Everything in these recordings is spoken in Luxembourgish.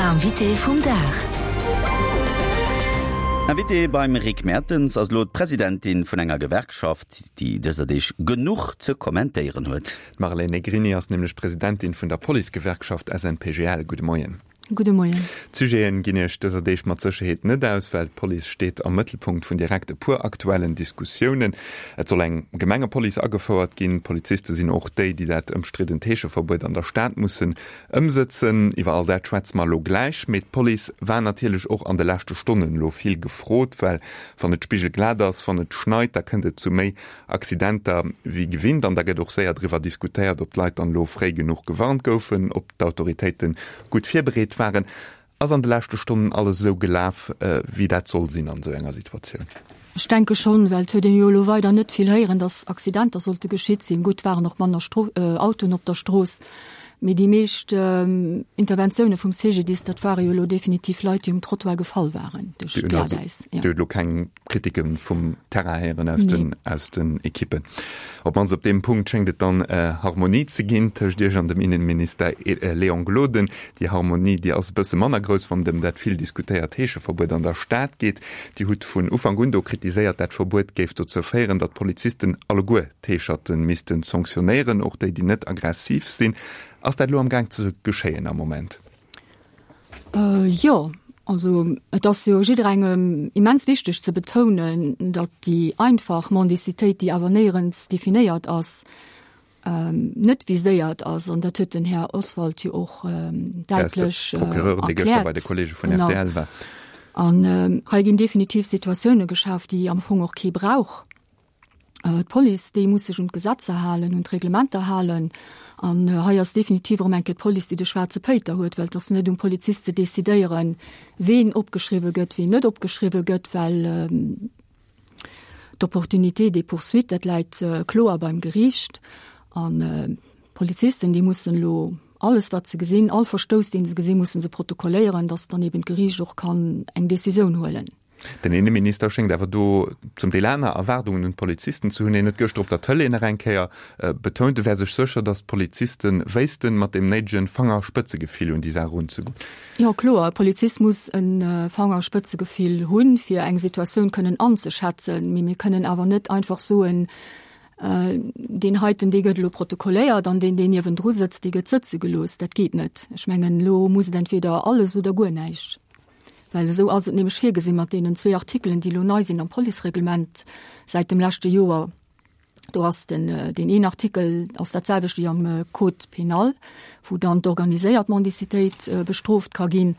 Invité vum Dag. Invitée beim Rick Mertens ass elo d'Presidentin vun enger Gewerkschaft, déi dëser Deeg genuch ze kommentéieren huet. D'Marlène Negrini ass nämlech Presidentin vun der Policegewerkschaft SNPGL. Gudde Moien. Gudde Moien. D'Sujeten ginn Iech dëser Deeg mat Sécherheet net aus, well d'Police steet am Mëttelpunkt vun direkt e puer aktuellen Diskussiounen. Et soll eng Gemengepolice agefouert ginn. D'Poliziste sinn och déi, déi dat ëmstriddent Heescheverbuet an der Stad mussen ëmsëtzen. Iwwer all dat schwätze mer elo gläich. Mee d'Police war natierlech och an de leschte Stonnen elo vill gefrot, well wann et spigelglat ass, wann et schneit, da kënnt et zu méi Accidenter wéi gewinnt an da gëtt och séier driwwer diskutéiert, ob d'Leit dann elo fréi genuch gewarnt goufen, ob d'Autoritéite gutt virbereet waren. Ass an de leschte Stonnen alles esou gelaf, wéi dat soll sinn an esou enger Situatioun? Ech denke schonn, well et huet een jo elo weider net vill héieren, datt Accidenter sollte geschitt sinn. Gutt, waren och manner Autoen op der Strooss, mee déi meescht Interventioune vum CGDIS, dat ware jo elo definitiv Leit, déi um Trottoir gefall waren duerch d'Glatäis. Dir hutt elo keng Kritike vum Terrain héieren aus den, aus den Ekippen. Op d'mannst op deem Punkt schéngt et dann Harmonie ze ginn tëscht Iech an dem Innenminister Léon Gloden. Déi Harmonie, déi ass e bësse manner grouss, wann et ëm dat vill diskutéiert Heescheverbuet an der Stad geet. Dir hutt vun Ufank un do kritiséiert, dat Verbuet géif dozou féieren, datt d'Polizisten alleguer d'Heescherte misste sanktionéieren, och déi, déi net aggressiv sinn. Ass dat elo am Gaang ze geschéien am Moment? Jo, also et ass jo jidderengem immens wichteg ze betounen, datt déi einfach Mendicitéit, déi awer néierens definéiert ass, net viséiert ass. An dat huet den Här Oswald jo och däitlech erkläert. Genau. An hei ginn definitiv Situatioune geschaf, déi am Fong och kee brauch. D'Police, déi muss sech un d'Gesetzer halen, un d'Reglementer halen. An hei ass definitiv erëm eng Kéier d'Police, déi de schwaarze Péiter huet, well et ass net um Polizist ze decidéieren, ween opgeschriwwe gëtt, ween net opgeschriwwe gëtt, well d'Opportunité des poursuites, dat läit kloer beim Geriicht. An d'Polizisten, déi mussen elo alles, wat se gesinn, all Verstouss, dee se gesinn, musse se protokolléieren, datt dann eben d'Geriicht och kann eng Decisioun huelen. Den Inneminister schéngt awer do zum Deel aner Erwaardungen un d'Polizisten ze hunn. Hien huet gëschter op der Tëlee nach eng Kéier betount, e wär sech sécher, datt d'Poliziste wéissten, mat deem néidege Fangerspëtzegefill un déi Saach erunzegoen. Jo, kloer, e Polizist muss e Fangerspëtzegefill hunn, fir eng Situatioun kënnen anzeschätzen. Mee mir kënnen awer net einfach soen, deen heiten, dee gëtt elo protokolléiert an deen, deen niewendru sëtzt, dee gëtt sëtze gelooss. Dat geet net. Ech mengen, elo muss et entweder alles oder guer näischt. Well esou ass et nämlech virgesinn mat deenen zwee Artikelen, déi elo nei sinn am Policereglement säit dem leschte Joer. Do ass den, deen een Artikel ass dat selwecht wéi am Code pénal, wou dann d'organiséiert Mendicitéit bestrooft ka ginn.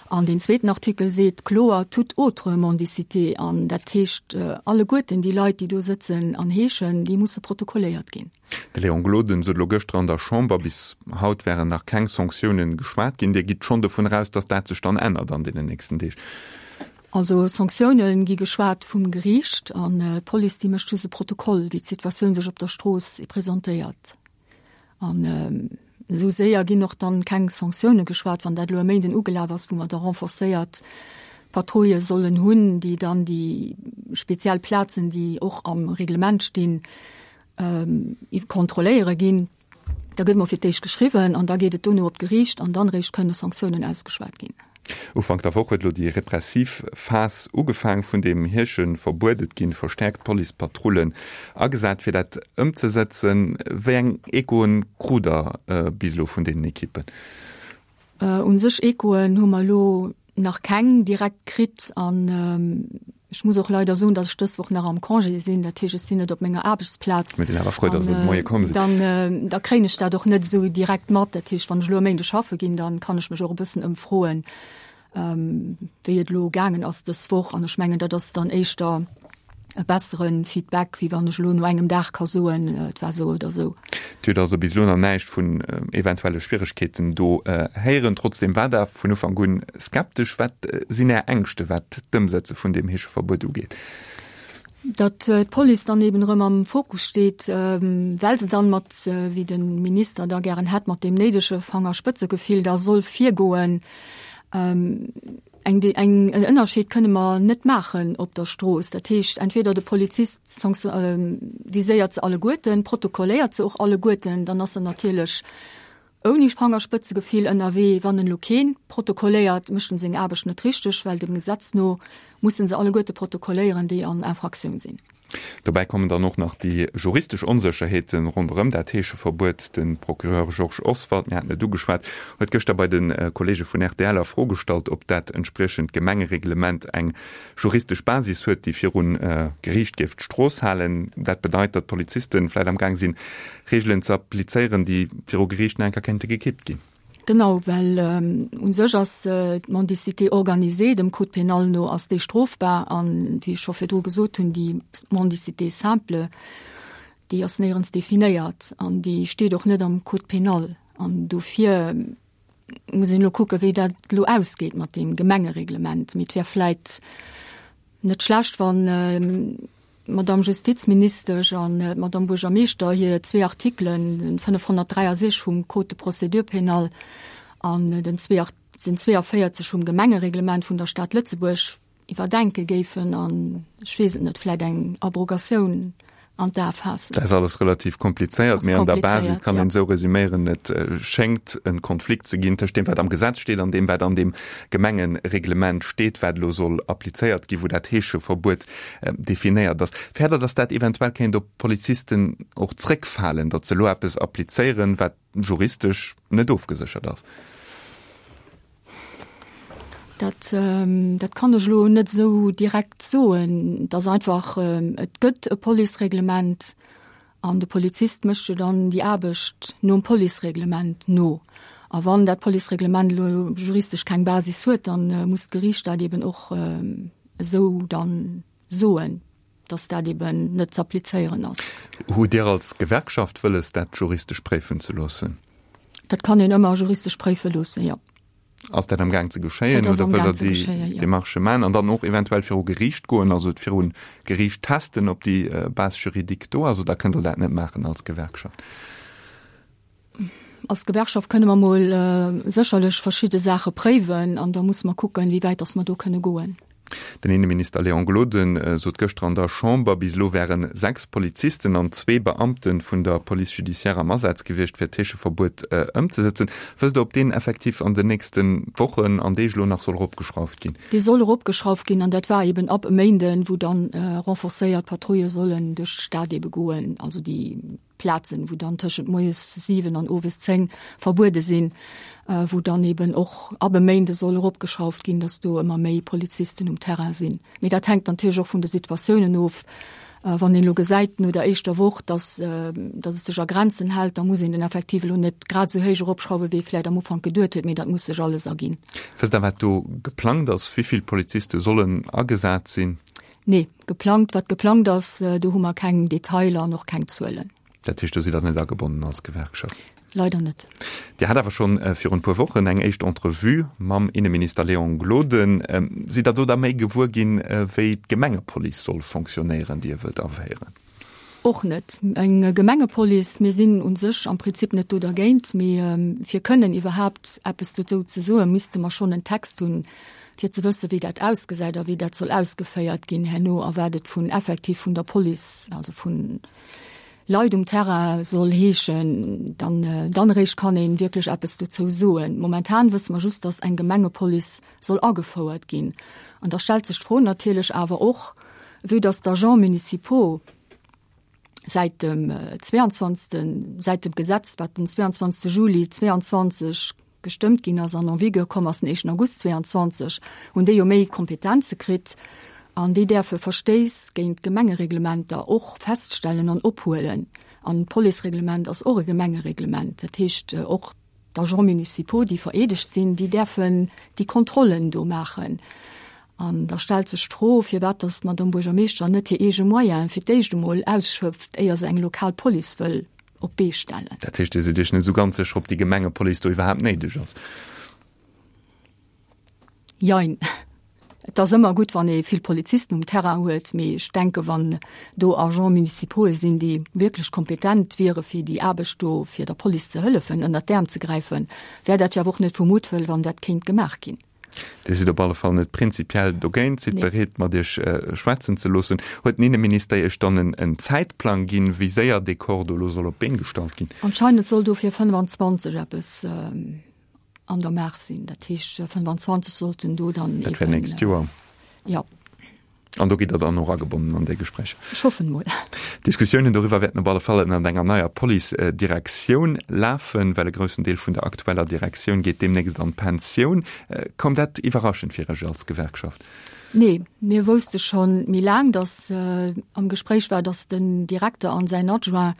An deen zweeten Artikel seet kloer toute autre mendicité. An dat heescht, alleguerten déi Leit, déi do sëtzen an heeschen, déi musse protokolléiert ginn. De Léon Gloden sot elo gëschter an der Chamber, bis haut wären nach keng Sanktiounen geschwat ginn. Dir gitt schonn dovun eraus, datt dat sech dann ännert an deenen nächsten Deeg? Also Sanktioune gi geschwat vum Geriicht an d'Police déi mécht just e Protokoll, wéi d'Situatioun sech op der Strooss presentéiert. An esou séier ginn och dann keng Sanktioune geschwat, wann dat elo e Méinden ugelaf ass, wou mer da renforcéiert Patrouille sollen hunn, déi dann déi speziell Plazen, déi och am Reglement stinn, kontrolléiere ginn. Da gëtt mol fir d'éischt geschriwwen an da geet et dono op d'Geriicht an dann eréischt kënne Sanktiounen ausgeschwat ginn. Ufank der Woch huet elo déi repressiv Phas ugefaang vun deem Heescheverbuet. Et gi verstäerkt Policepatrullen agesat, fir dat ëmzesëtzen. Wéi eng Echoen krut Der bis elo vun deenen Ekippen? U sech Echoen hu mer elo nach keng direkt kritt an ech muss och leider soen, datt ech dës Woch nach am Congé sinn. Dat heescht, ech sinn net op menger Aarbechtsplaz. Mir sinn awer frou, datt se de Moie komm sinn. Dann, da kréien ech dat och net esou direkt mat. Dat heescht, wann ech elo e Méinde schaffe ginn, dann kann ech mech och e bëssen ëmfroen, wéi et elo gaangen ass dës Woch. An ech mengen, dat ass dann éischter e bessere Feedback, wéi wann ech elo no engem Dag ka soen, et war esou oder esou. Dir hutt also bis elo nach näischt vun eventuelle Schwieregkeeten do héieren. Trotzdeem war Der vun Ufank un skeptesch. Wat sinn Är Ängschte wat d'Ëmsetze vun deem Heescheverbuet ugeet? Datt d'Police dann eben erëm am Fokus steet, well se dann mat, wéi de Minister da gären hätt, mat deem néidege Fangerspëtzegefill da soll virgoen. Eng, eng, en Ënnerscheed kënne mer net maachen op der Strooss. Dat heescht, entweder de Polizist viséiert se alleguerten, protokolléiert se och alleguerten, dann ass en natierlech. Ouni Fangerspëtzegefill ënnerwee. Wann en elo keen protokolléiert, mécht en seng Aarbecht net richteg, well dem Gesetz no mussen se alleguerte protokolléieren, déi an Infraktioun sinn. Dobäi kommen dann och nach déi juristesch Onsécherheete ronderëm dat Heescheverbuet. De Procureur Georges Oswald, mir haten et ugeschwat, huet gëschter bei de Kolleege vun rtl a Fro gestallt, ob dat entspriechend Gemengereglement eng juristesch Basis huet, déi viru Geriicht géif d'Strooss halen. Dat bedeit, datt d'Polizisten vläicht am Gaang sinn, Reegelen ze applizéieren, déi viru Geriicht nach eng Kéier kéinte gekippt ginn. Genau, well u sech ass d'Mendicité organisée, dem Code pénal no ass déi strofbar an, wéi ech scho virdru gesot hunn, déi Mendicité simple, déi ass néierens definéiert an déi steet och net am Code pénal. An dofir muss een elo kucken, wéi dat elo ausgeet mat deem Gemengereglement. Mee et wär vläit net schlecht, wann d'Madame Justizministesch an d'Madame Buergermeeschter hir zwee Artikelen, den 563 vum Code de procédure pénale an den 42 vum Gemengereglement vun der Stad Lëtzebuerg, iwwerdenke géifen an, ech weess et net, vläit eng Abrogatioun an d'A faassen. Dat ass alles relativ komplizéiert, mee an der Basis kann een esou resüméieren, Et schéngt e Konflikt ze ginn tëscht deem, wat am Gesetz steet, an deem, wat an deem Gemengereglement steet, wat elo soll applizéiert ginn, wou dat Heescheverbuet definéiert ass. Fäert Der, datt dat eventuell kéint op d'Polizisten och zréckfalen, datt se elo eppes applizéieren, wat juristesch net ofgeséchert ass? Dat, dat kann ech elo net esou direkt soen. Et ass einfach, et gëtt e Policereglement an de Polizist mécht jo dann déi Aarbecht nom Policereglement no. A wann dat Policereglement elo juristesch keng Basis huet, dann muss d'Geriicht dat eben och esou dann soen, dass dat eben net z'applizéieren ass. Hutt Dir als Gewerkschaft wëlles, dat juristesch préifen ze loossen? Dat kann een ëmmer juristesch préife loossen, jo. Ass dat am Gaang ze geschéien oder wëllt Der déi Demarchë maachen an dann och eventuell viru Geriicht goen, also et viru Geriicht testen, ob déi Base juridique do ass, oder kënnt Der dat net maachen als Gewerkschaft? Als Gewerkschaft kënne mer mol sécherlech verschidde Saache préiwen an da musse mer kucken, wéi wäit datt mer do kënne goen. Den Inneminister Léon Gloden sot gëschter an der Chamber, bis elo wäre 6 Polizisten an zwee Beamte vun der Police judiciaire am Asaz gewiescht, fir d'Heescheverbuet ëmzesëtzen. Wësst Der, ob deen effektiv an den nächste Wochen an Deeg elo nach soll eropgeschrauft ginn? Dee soll eropgeschrauft ginn an dat war eben ab e Méinden, wou dann renforcéiert Patrouille sollen duerch d'Stad ebe goen, also déi Plazen, wou dann tëschent moies 7 an owes 10 verbuede sinn, wou dann eben och ab e Méinde soll eropgeschrauft ginn, datt do ëmmer méi Polizisten um Terrain sinn. Mee dat hänkt natierlech och vun de Situatiounen of. Wann een elo gesäit no der éischter Woch, datt datt et sech a Grenzen hält, da muss een den Effektiv elo net grad esou héich eropschrauwen, wéi ee vläicht am Ufank geduet huet, mee dat muss sech alles erginn. Wësst Der, wat do geplangt ass? Wéi vill Poliziste sollen agesat sinn? Nee, geplangt, wat geplangt ass, do hu mer keng Detailer an och keng Zuelen. Dat heescht, do sidd Der net agebonnen als Gewerkschaft? Leider net. Dir hat awer schonn virun e puer Wochen eng éischt Entrevue mam Inneminister Léon Gloden. Sidd Der do da méi gewuer ginn, wéi d'Gemengepolice soll fonctionnéieren, déi e wëllt aféieren? Och net. Eng Gemengepolice, mir sinn u sech am Prinzip net do dergéint, mee fir kënnen iwwerhaapt eppes dozou ze soen, misste mer schonn en Text hunn, fir ze wëssen, wéi dat ausgesäit a wéi dat soll ausgeféiert ginn herno a wat et vun effektiv vun der Police, also vun Leit um Terrain soll heeschen. Dann, dann eréischt kann ee wierklech eppes dozou soen. Momentan wësse mer just, dass eng Gemengepolice soll agefouert ginn. An da stellt sech d'Fro natierlech awer och, vue dass d'Agents municipaux säit dem 22., säit dem Gesetz, wat den 22. Juli 22 gestëmmt ginn ass an en vigueur komm ass den éischten August 22, hunn déi jo méi Kompetenze kritt an déi däerfe Verstéiss géint d'Gemengereglementer och feststellen an ophuelen. An d'Policereglement ass och e Gemengereglement. Dat heescht och D'Agents municipaux, déi vereedegt sinn, déi däerfen déi Kontrollen do maachen. An da stellt sech d'Fro, firwat datt d'Madame Buergermeeschter net hir eege Moyene fir d'éischt emol ausschöpft, éier se eng lokal Police wëll op d'Bee stellen. Dat heescht, Dir sidd Iech net esou ganz sécher, ob déi Gemengepolice do iwwerhaapt néideg ass? Jein. Et ass ëmmer gutt, wann ee vill Polizisten um Terrain huet, mee ech denke wann do Agents municipaux'e sinn, déi wierklech kompetent wiere fir déi Aarbecht do, fir der Police ze hëllefen, ënnert d'Äerm ze gräifen, wär dat jo awer och net vu Muttwëll, wann dat kéint gemaach ginn. Dir sidd op alle Fall net prinzipiell dogéint, sidd bereet, mat Iech schwätzen ze loossen. Huet den Inneminister Iech dann en Zäitplang ginn, wéi séier dee Corps do elo soll op d'Been gestallt ginn? Anscheinend soll do fir 25 eppes an der Maach sinn. Dat heescht, 25 sollten do dann. Dat wär nächst Joer. Jo. An do gitt Der dann och agebonnen an déi Gespréicher? Ech hoffen emol. D'Diskussiounen doriwwer wäerten op alle Fall ënnert enger neier Police-Direktioun lafen, well e groussen Deel vun der aktueller Direktioun geet deemnächst an d'Pensioun. Koum dat iwwerraschend fir Iech als Gewerkschaft? Nee, mir wousste scho méi laang, datt am Gespréich war, datt den Direkter an säin Adjoint,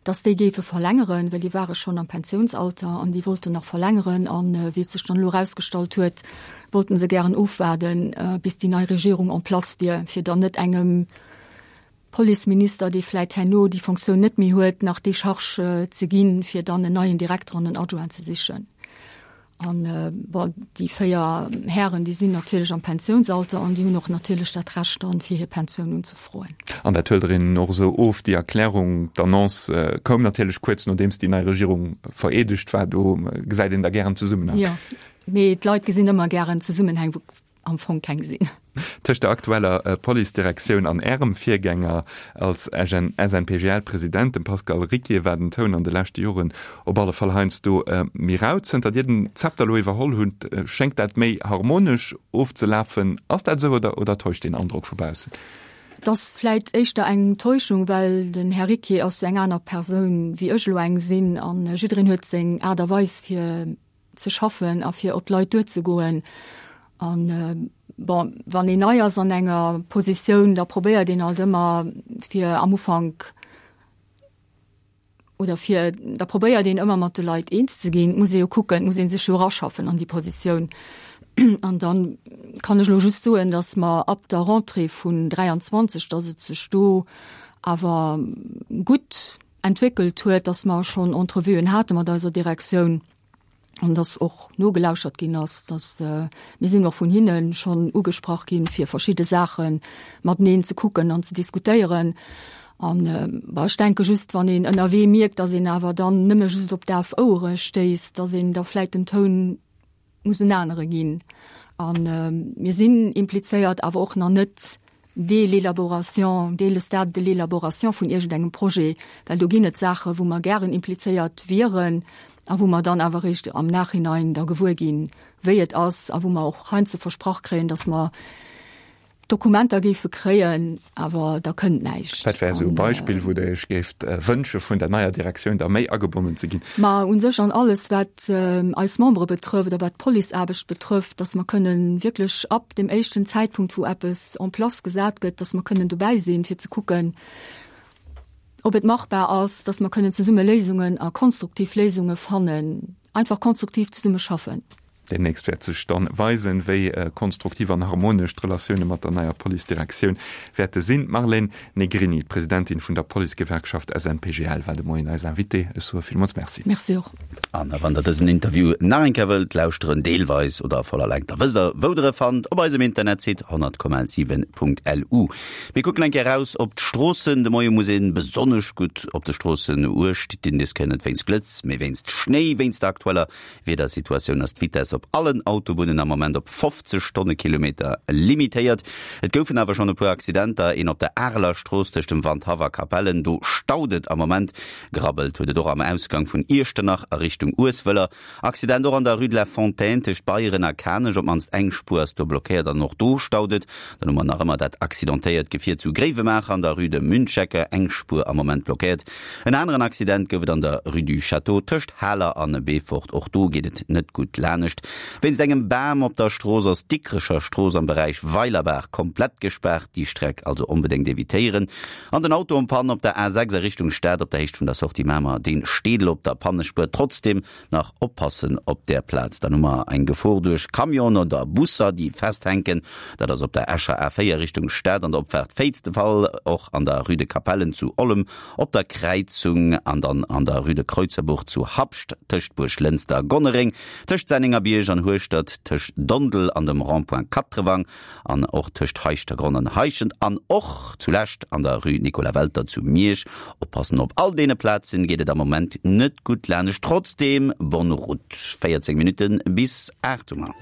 datt déi géife verlängeren, well déi ware schonn am Pensiounsalter an déi wollten nach verlängeren. An wéi et sech dann elo erausgestallt huet, wollten se gären ofwaarden, bis déi nei Regierung en place wier, fir dann net engem Policeminister, dee vläit herno déi Fonctioun net méi huet, nach déi Charge ze ginn, fir dann en neien Direkter an en Adjoint ze sichen. An, bon, déi 4 Hären, déi sinn natierlech am Pensiounsalter an déi hunn och natierlech dat Recht dann, fir hir Pensioun unzefroen. An dat huelt Der hinnen och esou of, déi Erklärung? D'Annonce koum natierlech kuerz nodeems déi nei Regierung vereedegt war. Do gesäit een da gären Zesummenhang. Jo. Mee d'Leit gesinn ëmmer gären Zesummenhäng, wou am Fong keng sinn. Tëscht der aktueller Police-Direktioun an Ärem Virgänger als SNPGL-President, dem Pascal Ricquier, war den Toun an de leschte Joren op alle Fall heiansdo méi rau. Zënter Dir den Zepter elo iwwerholl hutt, schéngt dat méi harmonesch ofzelafen. Ass dat esou oder oder täuscht deen Androck vu baussen? Et ass vläit éischter eng Täuschung, well den Här Ricquier ass jo eng aner Persoun wéi ech elo eng sinn a jiddereen huet seng Aart a Weis fir ze schaffen a fir op d'Leit duerzegoen. An bon, wann een nei ass an enger Positioun, da probéiert een alt ëmmer fir am Ufank oder fir da probéiert een ëmmer mat de Leit eens ze ginn. Et muss ee jo kucken, et muss ee sech jo eraschaffen an déi Positioun. An dann kann ech elo just soen, datt mer ab der Rentrée vun 23, datt et sech do awer gutt entwéckelt huet, dass mer schonn Entrevuen hate mat eiser Direktioun an dass och nogelauschert ginn ass, dass mir sinn och vun hinne schonn ugesprach ginn, fir verschidde Saache mateneen ze kucken an ze diskutéieren. An ech denke just, wann een ënnerwee mierkt, dass een awer dann nëmme just op daf Ouere stéisst, dass een da vläicht den Toun muss en anere ginn. A mir sinn implizéiert, awer och nach net dès l'élaboration, dès le stade de l'élaboration vun iergendengem Projet, well do ginn et Saache wou mer gären implizéiert wieren a wou mer dann awer eréischt am Nachhinein da gewuer ginn, wéi et ass a wou mer och heiansdo versprach kréien, dass mer Dokumenter géife kréien, awer da kënnt näischt. Wat wär esou e Beispill, wou Der Iech géift wënsche vun der neier Direktioun da méi agebonnen ze ginn? Ma u sech an alles, wat eis Membere betrëfft a wat d'Policeaarbecht betrëfft, dass mer kënnen wierklech ab dem éischten Zäitpunkt, wou eppes en place gesat gëtt, dass mer kënnen dobäi sinn, fir ze kucken, ob et machbar ass, dass mer kënnen zesumme Léisungen a konstruktiv Léisunge fannen, einfach konstruktiv zesumme schaffen. Deemnächst wäert sech dann weisen, wéi konstruktiv an harmonesch d'Relatioune mat der neier Police-Direktioun wäerte sinn. D'Marlène Negrini, d'Presidentin vun der Policegewerkschaft SNPGL, war de Moien eis Invitée. Ech soe villmools Merci. Merci och. An wann der dësen Interview nach eng Kéier wëllt lauschteren, deelweis oder a voller Längt, da wësst der, wou der e fannt, op eisem Internetsite 100,7.lu. Mir kucken eng Kéier eraus op d'Stroossen. De Moie muss ee besonnesch gutt op de Stroossen uecht dinn. Dës Kéier net wéinst Glëtz, mee wéinst Schnéi. Wéinst der aktueller Wiedersituatioun ass d'Vitess op allen Autobunnen am Moment op 50 Stonnekilometer limitéiert. Et goufen awer schonn e puer Accidenter, een op der Areler Strooss tëscht dem Wandhaff a Capellen, do staut et am Moment. Grabbelt huet et och am Ausgang vun Iechternach a Richtung Ueswëller. Accident och an der Rue de la Fontaine tëscht Beyeren a Kanech, op d'mannst eng Spuer ass do blockéiert an och do staut et. Dann hu mer nach ëmmer dat accidentéiert Gefier zu Gréiwemaacher an der Rue de Münchecker, eng Spuer am Moment blockéiert. En aneren Accident gouf et an der Rue du Château tëscht Haler an Beefort. Och do geet et net gutt lanescht. Wéinst engem Bam op der Strooss ass d'Dikrecher Strooss am Beräich Weilerbaach komplett gespaart. Déi Streck also onbedéngt evitéieren. An den Auto en Panne op der A6 a Richtung Stad op der Héicht vun der Sortie Mamer, dee steet elo op der Pannespuer. Trotzdeem Nach oppassen op där Plaz, dann hu mer eng Gefor duerch Camionen oder Busser, déi festhänken. Dat ass op der Escher A4 Richtung Stad an der Opfaart Féiz de Fall, och an der Rue de Capellen zu Ollem op der Kräizung an dann an der Rue de Kreuzerbuch zu Habscht, tëscht Buerglënster a Gonnereng, tëscht Sennengerbierg an Hueschtert, tëscht Dondel an dem Rond-point Katrewang. An och tëscht Heischtergronn an Heischent an och zulescht an der Rue Nicolas Welter zu Miersch. Oppassen, op all deene Plazen geet et am Moment net gutt lanescht. Trotzdeem, bonne route. 14 Minutten bis 8 hu mer.